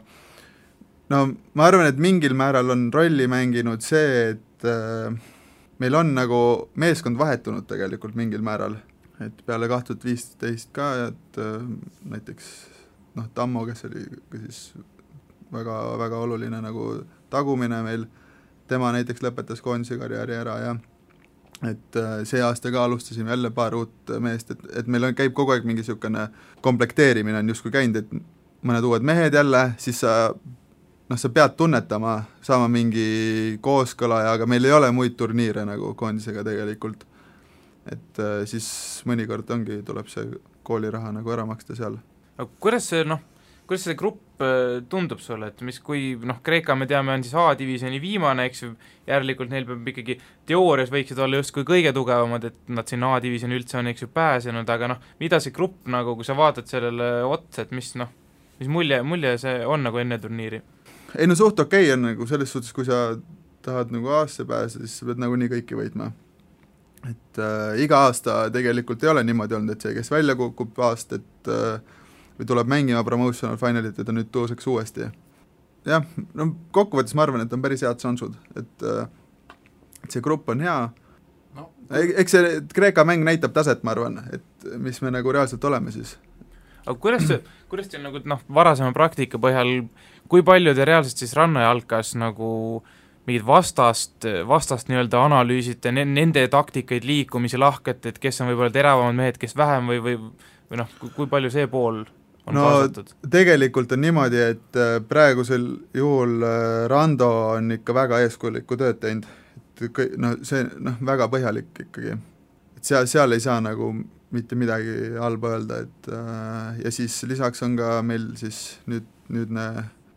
no ma arvan, et mingil määral on rolli mänginud see, et meil on nagu meeskond vahetunud tegelikult mingil määral, et peale 2015 ka, et näiteks Tammo, kes oli siis väga, väga oluline nagu tagumine meil, tema näiteks lõpetas koondise karjääri ära ja et see aasta ka alustasime jälle paar uut meest, et meil käib kogu aeg mingi niisugune komplekteerimine on justkui käinud, et mõned uued mehed jälle, siis sa pead tunnetama, saama mingi kooskõla, aga meil ei ole muid turniire nagu koondisega tegelikult. Et siis mõnikord tuleb see kooliraha nagu ära maksta seal. Kuidas see grupp tundub sulle, et kui Kreeka me teame on siis A-divisiooni viimane, eks ju, järelikult neil peab ikkagi teoorias võiksid olla justkui kõige tugevamad, et nad siin A-divisiooni üldse on eks ju pääsenud, aga mida see grupp nagu, kui sa vaatad sellele otsa, et mis mulje see on nagu enne turniiri? Ei no suht okei on nagu selles suhtes, kui sa tahad nagu aastasse pääseda, siis sa pead nagu nii kõiki võitma. Et iga aasta tegelikult ei ole niimoodi olnud, et see, kes välja kukub aastat või tuleb mängima promotional finalit, et ta nüüd tõuseks uuesti. Jah, no kokkuvõttes ma arvan, et on päris head šansud, et see grupp on hea. No. Eks see Kreeka mäng näitab taset, ma arvan, et mis me nagu reaalselt oleme siis. Aga kuidas teil nagu varasema praktika põhjal, kui palju te reaalselt siis rannajalkas nagu mingid vastast nii-öelda analüüsite, nende taktikaid, liikumisi, lahket, et kes on võib-olla teravamad mehed, kes vähem või kui palju see pool on kaasatud? Tegelikult on niimoodi, et praegusel juhul Rando on ikka väga eeskujulikku tööd teinud, et see väga põhjalik ikkagi, et seal ei saa nagu mitte midagi halba öelda, et ja siis lisaks on ka meil siis nüüdne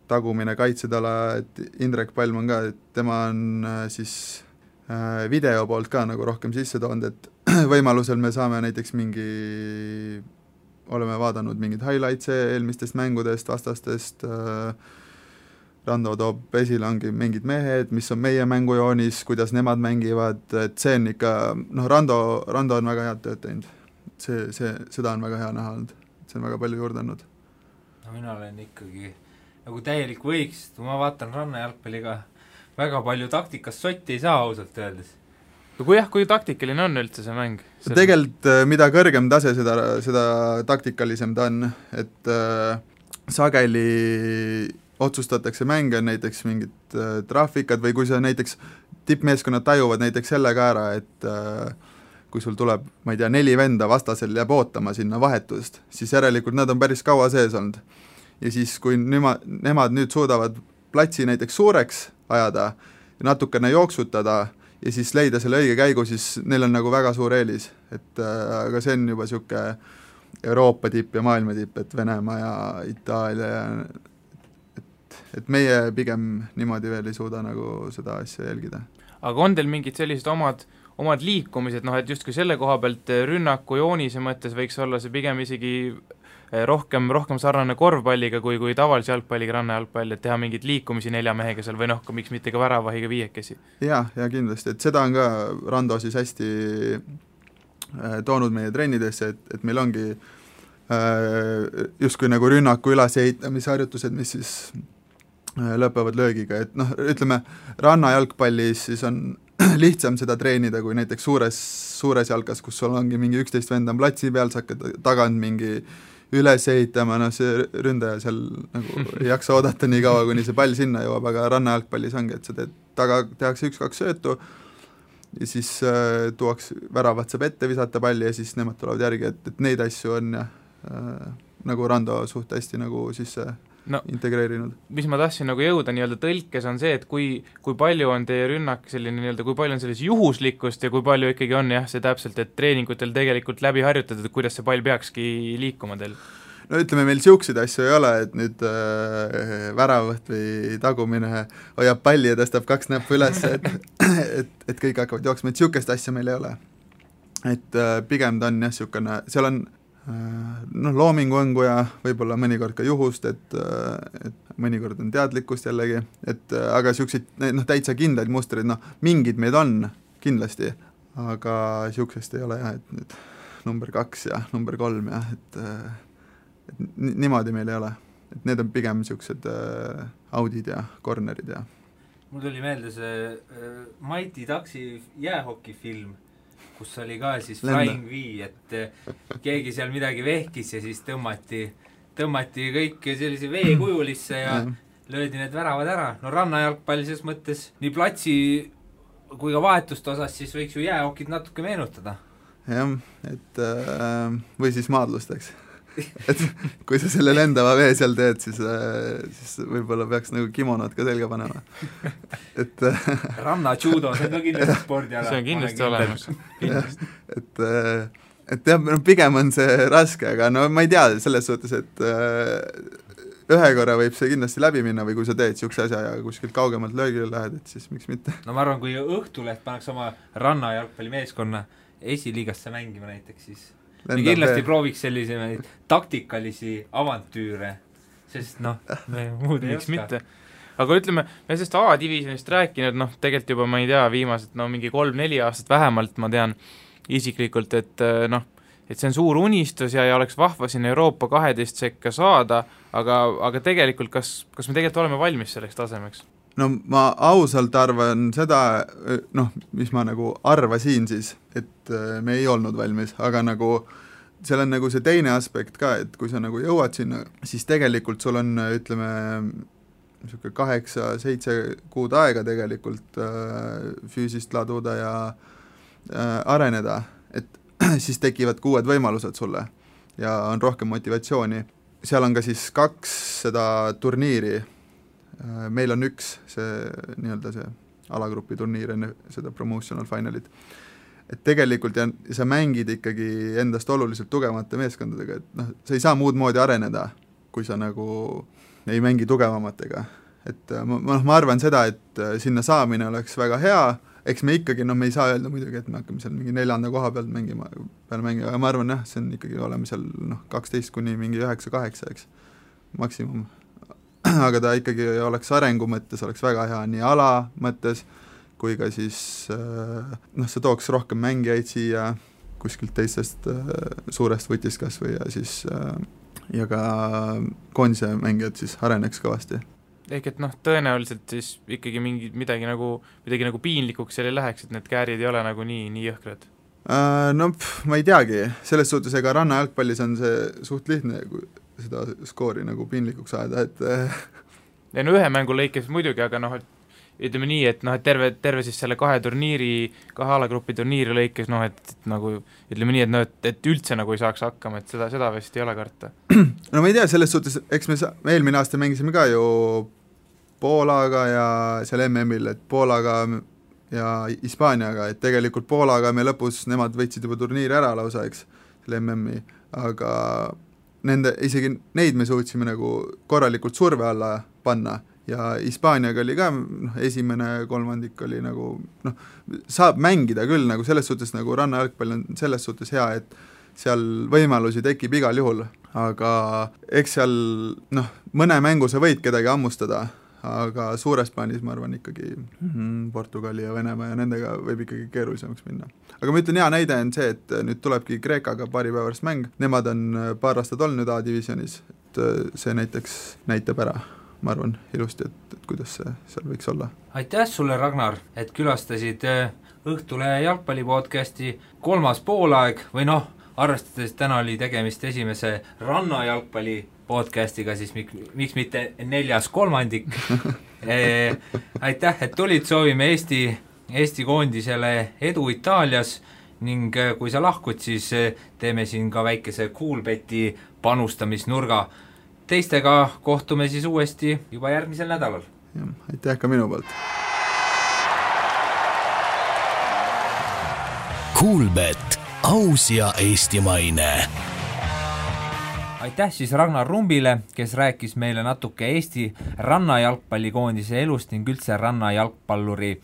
tagumine kaitsetala, et Indrek Palm on ka, et tema on siis video poolt ka nagu rohkem sisse toonud, et võimalusel me saame näiteks oleme vaadanud mingid highlights eelmistest mängudest, vastastest, Rando toob esile ongi mingid mehed, mis on meie mängujoonis, kuidas nemad mängivad, et see on ikka, Rando on väga head tööd teinud. Seda on väga hea näha olnud, see on väga palju juurde andnud. No mina olen ikkagi nagu täielik võiks, ma vaatan rannajalgpalliga väga palju taktikast sotti ei saa ausalt öeldes. Kui taktikaline on üldse see mäng? Tegelikult mida kõrgem tase, seda taktikalisem ta on, et sageli otsustatakse mänge, näiteks mingid trahvikad või kui sa näiteks tippmeeskonnad tajuvad näiteks selle ka ära, et kui sul tuleb, ma ei tea, 4 venda vastasel jääb ootama sinna vahetust, siis järelikult nad on päris kaua sees olnud. Ja siis, kui nemad nüüd suudavad platsi näiteks suureks ajada ja natukene jooksutada ja siis leida selle õige käigu, siis neil on nagu väga suur eelis. Aga see on juba siuke Euroopa tipp ja maailma tipp, et Venemaa ja Itaalia ja et meie pigem niimoodi veel ei suuda nagu seda asja jälgida. Aga on teil mingid sellised omad liikumised, et justkui selle koha pealt rünnaku joonise mõttes võiks olla see pigem isegi rohkem sarnane korvpalliga kui tavalise jalgpalliga rannajalgpall, et teha mingeid liikumisi 4 mehega seal või miks mitte ka väravahiga 5. Ja kindlasti, et seda on ka Rando siis hästi toonud meie trennidesse, et meil ongi justkui nagu rünnaku ülesehitamisharjutused, mis siis lõpevad löögiga, et ütleme, rannajalgpallis siis on lihtsam seda treenida kui näiteks suures jalkas, kus sul ongi mingi 11 vend on platsi peal, sa hakkad tagant mingi üles ehitama, see ründaja seal nagu ei jaksa oodata nii kaua, kuni see pall sinna jõuab, aga rannajalgpallis ongi, et sa tehakse 1-2 söötu, ja siis tuuaks väravat saab ette visata palli ja siis nemad tulevad järgi, et neid asju on nagu Rando suht hästi nagu sisse integreerinud. Mis ma tahtsin nagu jõuda nii-öelda tõlkes on see, et kui palju on teie rünnak selline nii-öelda, kui palju on selles juhuslikkust ja kui palju ikkagi on see täpselt, et treeningutel tegelikult läbi harjutatud, et kuidas see pall peakski liikuma teil? No ütleme, meil siukseid asju ei ole, et nüüd väravat või tagumine hoiab palli ja tõstab 2 näppu üles, et kõik hakkavad jooksma, et siukest asja meil ei ole. Et pigem ta on siukene, seal on loomingu ja võib-olla mõnikord ka juhust, et mõnikord on teadlikkust jällegi, et aga siukseid täitsa kindlaid mustreid, mingid meid on kindlasti, aga siuksest ei ole et nüüd number 2 ja number 3 ja et niimoodi meil ei ole, et need on pigem siuksed audid ja cornerid ja mul tuli meelde see Mighty Ducksi jäähokifilm, kus oli ka siis Flying V, et keegi seal midagi vehkis ja siis tõmmati kõik sellise veekujulisse ja löödi need väravad ära. No rannajalgpalli selles mõttes nii platsi kui ka vahetuste osas siis võiks ju jäähokid natuke meenutada. Jah, et või siis maadlusteks. Et kui sa selle lendava vee seal teed, siis võib-olla peaks nagu kimonod ka selga panema. Et ranna-judo, see on ka kindlasti spordiala. See on kindlasti olemas. Et jah, pigem on see raske, aga ma ei tea selles suhtes, et ühe korra võib see kindlasti läbi minna või kui sa teed siukse asja ja kuskilt kaugemalt löögile lähed, et siis miks mitte. No ma arvan, kui Õhtuleht paneks oma rannajalgpallimeeskonna esiliigasse mängima näiteks, siis me kindlasti prooviks sellise taktikalisi avantüüre, sest me muud ei oska. Mitte. Aga ütleme, me sellest A-divisionist rääkinud, tegelikult juba ma ei tea, viimased mingi 3-4 aastat vähemalt ma tean isiklikult, et see on suur unistus ja oleks vahva siin Euroopa 12 sekka saada, aga tegelikult kas me tegelikult oleme valmis selleks tasemeks? No ma ausalt arvan seda, mis ma nagu arvasin siis, et me ei olnud valmis, aga nagu seal on nagu see teine aspekt ka, et kui sa nagu jõuad sinna, siis tegelikult sul on, ütleme, 8-7 kuud aega tegelikult füüsist laduda ja areneda, et siis tekivad uued võimalused sulle ja on rohkem motivatsiooni. Seal on ka siis 2 seda turniiri, meil on 1 see nii-öelda see alagrupi turniir enne seda promotional finalit, et tegelikult sa mängid ikkagi endast oluliselt tugevamate meeskondadega, et sa ei saa muud moodi areneda, kui sa nagu ei mängi tugevamatega, et ma arvan seda, et sinna saamine oleks väga hea, eks me ikkagi, me ei saa öelda muidugi, et me hakkame seal mingi 4. koha pealt mängima, aga ma arvan see on ikkagi oleme seal 12 kuni mingi 9-8, eks, maksimum. Aga ta ikkagi oleks arengu mõttes, oleks väga hea nii ala mõttes, kui ka siis see tooks rohkem mängijaid siia kuskilt teistest suurest võtist kas või ja siis ja ka koondise mängijad siis areneks kõvasti. Ehk et tõenäoliselt siis ikkagi midagi nagu piinlikuks seal ei läheks, et need käärid ei ole nagu nii jõhkrad? Ma ei teagi, selles suhtes ega rannajalgpallis on see suht lihtne, seda skoori nagu piinlikuks ajada, et ja ühe mängu lõikes muidugi, aga ütleme nii, et terve siis selle 2 alagrupi turniiri lõikes, et nagu ütleme nii, et üldse nagu ei saaks hakkama, et seda vist ei ole karta. No ma ei tea, selles suhtes, eks me eelmine aasta mängisime ka ju Poolaga ja seal MM-il, et Poolaga ja Hispaaniaga, et tegelikult Poolaga me lõpus, nemad võtsid juba turniiri ära lausa, eks, selle MM-i, aga isegi neid me suutsime nagu korralikult surve alla panna ja Hispaaniaga oli ka, esimene kolmandik oli nagu, saab mängida küll, nagu selles suhtes nagu rannajalgpall on selles suhtes hea, et seal võimalusi tekib igal juhul, aga eks seal, mõne mängu sa võid kedagi hammustada, aga suures plaanis ma arvan ikkagi Portugali ja Venemaa ja nendega võib ikkagi keerulisemaks minna. Aga ma ütlen, hea näide on see, et nüüd tulebki Kreekaga paari päevast mäng, nemad on paar aastat olnud A-divisionis, et see näiteks näitab ära, ma arvan, ilusti, et kuidas see seal võiks olla. Aitäh sulle, Ragnar, et külastasid Õhtulehe jalgpallipodcasti 3. poolaeg või arvestades täna oli tegemist esimese rannajalgpalli podcastiga, siis miks mitte 4. kolmandik. Aitäh, et tulid, soovime Eesti Eesti koondisele edu Itaalias ning kui sa lahkud, siis teeme siin ka väikese Coolbeti panustamisnurga. Teistega kohtume siis uuesti juba järgmisel nädalal. Aitäh ka minu poolt. Coolbet, aus ja eestimaine. Aitäh siis Ragnar Rumbile, kes rääkis meile natuke Eesti rannajalgpallikoondise elust ning üldse rannajalgpalluri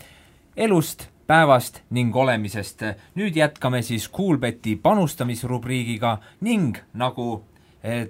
elust, päevast ning olemisest. Nüüd jätkame siis Coolbeti panustamisrubriigiga ning nagu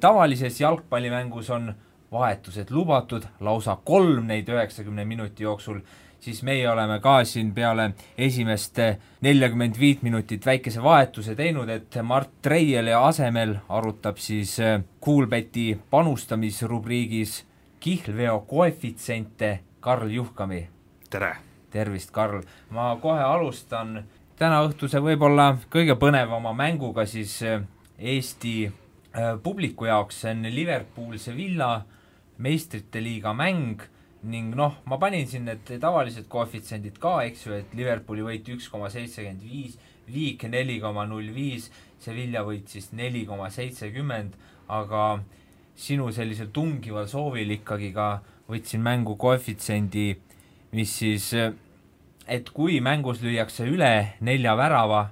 tavalises jalgpallimängus on vahetused lubatud, lausa 3 neid 90 minuti jooksul, siis meie oleme ka siin peale esimest 45 minutit väikese vahetuse teinud, et Mart Treieli asemel arutab siis Coolbeti panustamisrubriigis kihlveo koefitsente Karl Juhkami. Tere! Tervist, Karl! Ma kohe alustan täna õhtuse võib-olla kõige põnevama mänguga siis Eesti publiku jaoks, see on Liverpool Sevilla meistrite liiga mäng ning ma panin siin need tavalised koefitsendid ka, eks ju, et Liverpooli võit 1,75, Viik 4,05, Sevilla võit siis 4,70, aga sinu sellisel tungival soovil ikkagi ka võtsin mängu koefitsendi, mis siis, et kui mängus lüüakse üle 4 värava,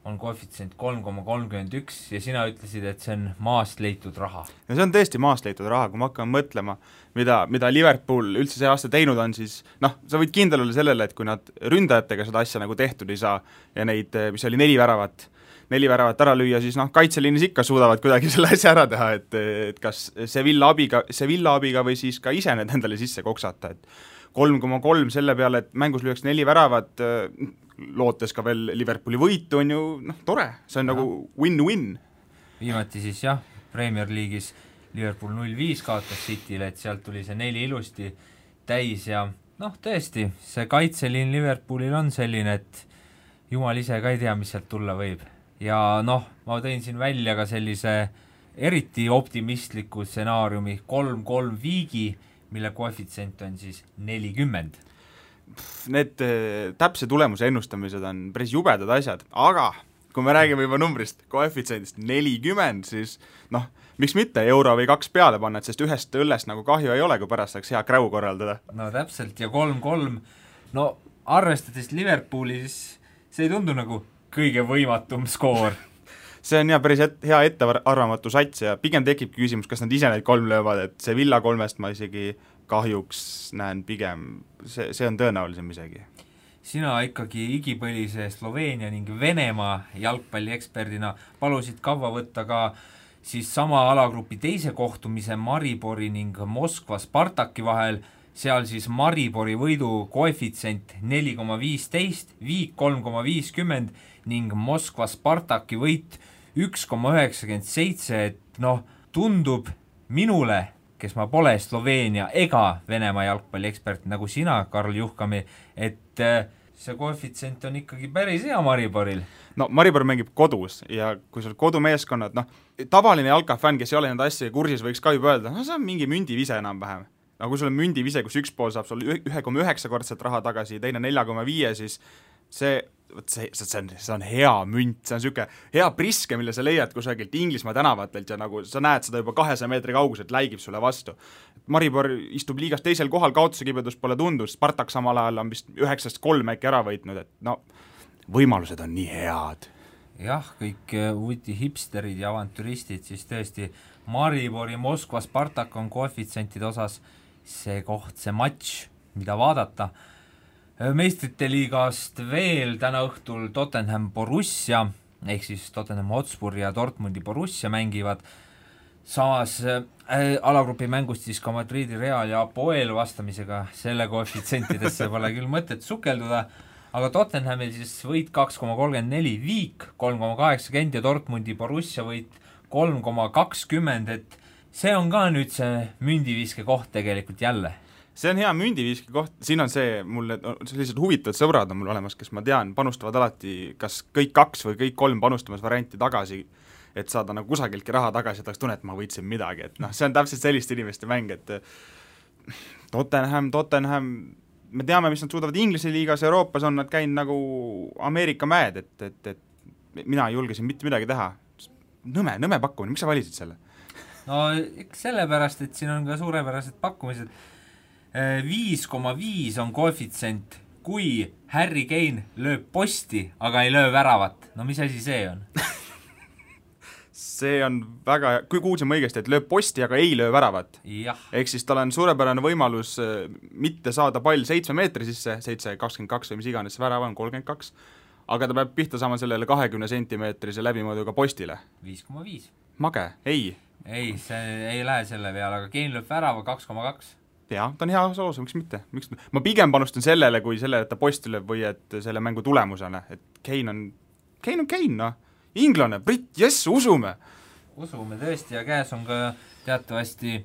on koefitsient 3,31 ja sina ütlesid, et see on maast leitud raha. Ja see on tõesti maast leitud raha, kui ma hakkan mõtlema, mida Liverpool üldse see aasta teinud on, siis sa võid kindel olla sellele, et kui nad ründajatega seda asja nagu tehtud ei saa ja neid, mis oli 4 väravat ära lüüa, siis kaitseliinis ikka suudavad kuidagi selle asja ära teha, et kas Sevilla abiga või siis ka ise need endale sisse koksata, et 3,3 selle peale, et mängus lüüaks 4 väravat, lootes ka veel Liverpooli võitu on ju tore, see on nagu win-win. Viimati siis Premier League'is Liverpool 0-5 kaotas City'le, et sealt tuli see 4 ilusti täis ja tõesti, see kaitseliin Liverpoolil on selline, et jumal ise ka ei tea, mis sealt tulla võib. Ja ma tõin siin välja ka sellise eriti optimistliku stsenaariumi 3-3 Viigi, mille koefitsient on siis 40. Need täpse tulemuse ennustamised on päris jubedad asjad, aga kui me räägime juba numbrist, koefitsiendist 40, siis miks mitte euro või 2 peale panna, et sest ühest õllest nagu kahju ei ole, kui pärast saaks hea kräu korraldada. No täpselt, ja 3-3, arvestades Liverpoolis, see ei tundu nagu kõige võimatum skoor. See on päris hea ettearvamatu sats ja pigem tekibki küsimus, kas nad ise neid 3 löövad, et see Villa 3-st ma isegi kahjuks näen pigem, see on tõenäolisem isegi. Sina ikkagi igipõlise Sloveenia ning Venemaa jalgpallieksperdina palusid kaua võtta ka siis sama alagrupi teise kohtumise Maribori ning Moskva Spartaki vahel, seal siis Maribori võidu koefitsient 4,15, Viik 3,50 ning Moskva Spartaki võit 1,97, et tundub minule, kes ma pole Sloveenia ega Venemaa jalgpalliekspert nagu sina, Karl Juhkami, et see koefitsient on ikkagi päris hea Mariboril. Maribor mängib kodus ja kui sul kodumeeskonnad, tavaline jalkafänn, kes ei ole nende asja kursis, võiks ka juba öelda, see on mingi mündivise enam-vähem. Kui sul on mündivise, kus üks pool saab sul 1,9 kordsat raha tagasi, teine 4,5, siis see on hea münt, see on niisugune hea priske, mille sa leiad kusagilt Inglismaa tänavatelt ja nagu sa näed seda juba 200 meetri kauguselt, läigib sulle vastu. Maribor istub liigas teisel kohal, kaotuse kibedus pole tundus, Spartak samal ajal on vist 9-3 äkki ära võitnud, et võimalused on nii head. Jah, kõik uuti hipsterid ja avantüristid, siis tõesti Maribori Moskva Spartak on koefitsientide osas see koht, see matš, mida vaadata. Meistrite liigast veel täna õhtul Tottenham Borussia, ehk siis Tottenham Hotspur ja Dortmundi Borussia mängivad. Samas alagrupi mängust siis ka Madridi Real ja Apoel vastamisega, selle koefitsientidesse pole küll mõtet sukelduda, aga Tottenhamil siis võit 2,34, Viik 3,80 ja Dortmundi Borussia võit 3,20, et see on ka nüüd see mündiviske koht tegelikult jälle. See on hea mündiviiski koht, siin on mul sellised huvitavad sõbrad on mul olemas, kes ma tean, panustavad alati kas kõik 2 või kõik 3 panustamas varianti tagasi, et saada nagu kusagiltki raha tagasi, et oleks tunne, et ma võitsin midagi, et see on täpselt sellist inimeste mäng, et Tottenham me teame, mis nad suudavad Inglise liigas, Euroopas on nad käinud nagu Ameerika mäed, et mina ei julge siin mitte midagi teha. Nõme pakkumine, miks sa valisid selle? No sellepärast, et siin on ka suurepärased pakkumised. 5,5 on koefitsient, kui Harry Kane lööb posti, aga ei löö väravat. No mis asi see on? See on väga, kui kuulsime õigesti, et lööb posti, aga ei löö väravat. Ehk siis tal on suurepärane võimalus mitte saada pall 7 meetri sisse, 7,22 või mis iganes see värav on, 32, aga ta peab pihta saama sellele 20 sentimeetrise läbimõõduga postile. 5,5. Mage, ei. Ei, see ei lähe selle peale, aga Kane lööb värava 2,2. Jaa, ta on hea soos, miks mitte? Ma pigem panustan sellele, kui selle, et ta posti lööb või et selle mängu tulemusena, et Kane on Kane, noh. Inglane, Brit, jess, usume tõesti ja käes on ka teatavasti,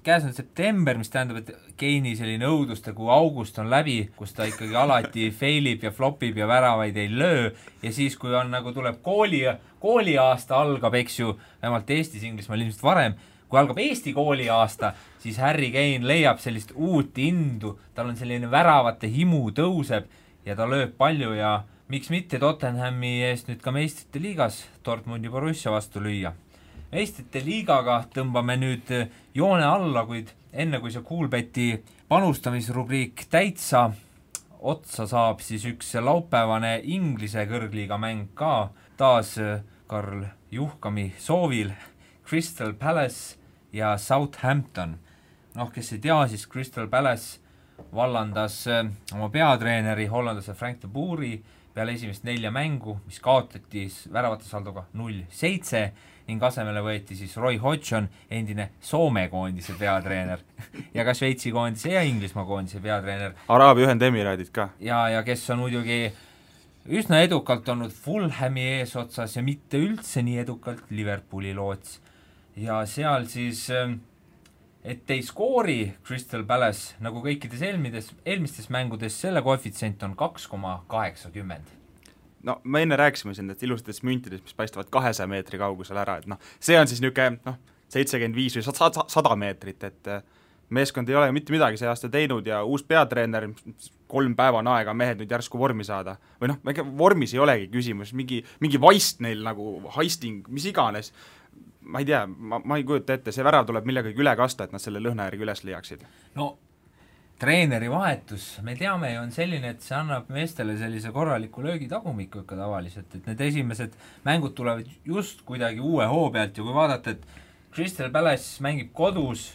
käes on september, mis tähendab, et Keini selline õuduste, kui august on läbi, kus ta ikkagi alati failib ja flopib ja väravaid ei löö ja siis, kui on nagu tuleb kooliaasta algab, eks ju, vähemalt Eestis, Inglismaal ilmselt varem, kui algab Eesti kooliaasta, siis Harry Kane leiab sellist uut indu, tal on selline väravate himu tõuseb ja ta lööb palju ja miks mitte Tottenhami eest nüüd ka meistrite liigas Dortmundi Borussia vastu lüüa. Meistrite liigaga tõmbame nüüd joone alla, kuid enne kui see Coolbeti panustamisrubriik täitsa otsa saab, siis üks laupäevane Inglise kõrgliiga mäng ka taas Karl Juhkami soovil Crystal Palace ja Southampton. Kes ei tea, siis Crystal Palace vallandas oma peatreeneri hollandlase Frank de Boeri peale esimest 4 mängu, mis kaotati väravate saldoga 0-7 ning asemele võeti siis Roy Hodgson, endine Soome koondise peatreener ja ka Šveitsi koondise ja Inglismaa koondise peatreener. Araabia Ühendemiraadid ka. Ja kes on muidugi üsna edukalt olnud Fulhami eesotsas ja mitte üldse nii edukalt Liverpooli loots. Ja seal siis et ei skoori Crystal Palace nagu kõikides eelmistes mängudes, selle koefitsient on 2,80. No me enne rääkisime siin, et ilusatest müntidest, mis paistavad 200 meetri kaugusel ära, et see on siis niisugune 75 või 100 meetrit, et meeskond ei ole mitte midagi see aasta teinud ja uus peatreener, 3 päeva on aega mehed nüüd järsku vormi saada. Või vormis ei olegi küsimus, mingi vaist neil nagu heisting, mis iganes. Ma ei tea, ma ei kujuta ette, see värav tuleb millegagi üle kasta, et nad selle lõhna järgi üles liiaksid. No, treeneri vahetus, me teame ju on selline, et see annab meestele sellise korraliku löögitagumiku ikka tavaliselt, et need esimesed mängud tulevad just kuidagi uue hoo pealt ja kui vaadata, et Crystal Palace mängib kodus,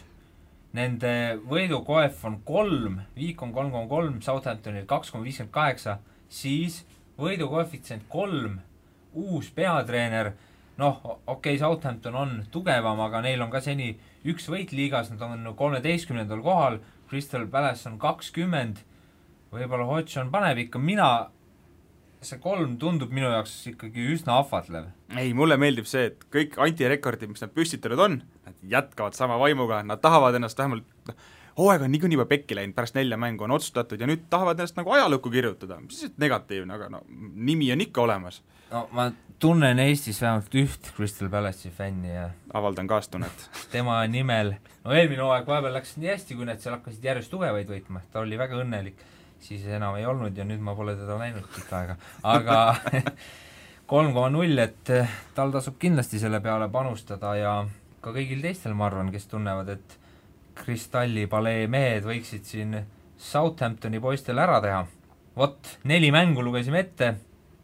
nende võidukoef on 3, viik on 3,3, Southamptonil 2,58, siis võidukoefitsient 3, uus peatreener, Southampton on tugevam, aga neil on ka seni üks võit liigas, nad on 13. kohal, Crystal Palace on 20, võib-olla Hodgson paneb ikka, see 3 tundub minu jaoks ikkagi üsna ahvatlev. Ei, mulle meeldib see, et kõik antirekordid, mis nad püstitanud on, nad jätkavad sama vaimuga, nad tahavad ennast vähemalt, hooaeg on niikuinii juba pekki läinud, pärast 4 mängu on otsustatud ja nüüd tahavad ennast nagu ajalukku kirjutada, mis siis negatiivne, aga nimi on ikka olemas. Ma tunnen Eestis vähemalt üht Crystal Palace'i fänni ja avaldan kaastunnet. Tema nimel, eelmine hooaeg vahepeal läks nii hästi, kui need seal hakkasid järjest tugevaid võitma, ta oli väga õnnelik, siis enam ei olnud ja nüüd ma pole teda näinud pikka aega, aga 3,0, et tal tasub kindlasti selle peale panustada ja ka kõigil teistel ma arvan, kes tunnevad, et Kristalli palee mehed võiksid siin Southamptoni poistel ära teha. 4 mängu lugesime ette,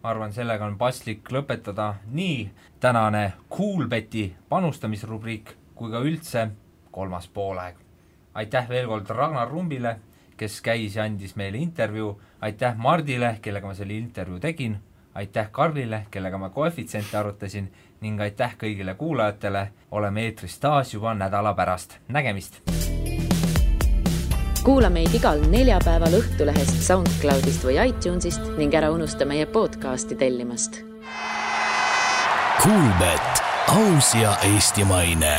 ma arvan, sellega on paslik lõpetada nii tänane Coolbeti panustamisrubriik kui ka üldse 3. poolaeg. Aitäh veel kord Ragnar Rumbile, kes käis ja andis meile intervjuu, aitäh Mardile, kellega ma selle intervjuu tegin, aitäh Karlile, kellega ma koefitsiente arutasin ning aitäh kõigile kuulajatele, oleme eetris taas juba nädala pärast. Nägemist! Kuula meid igal neljapäeval Õhtulehest, SoundCloudist või iTunesist ning ära unusta meie podcasti tellimast. Coolbet, aus ja eestimaine.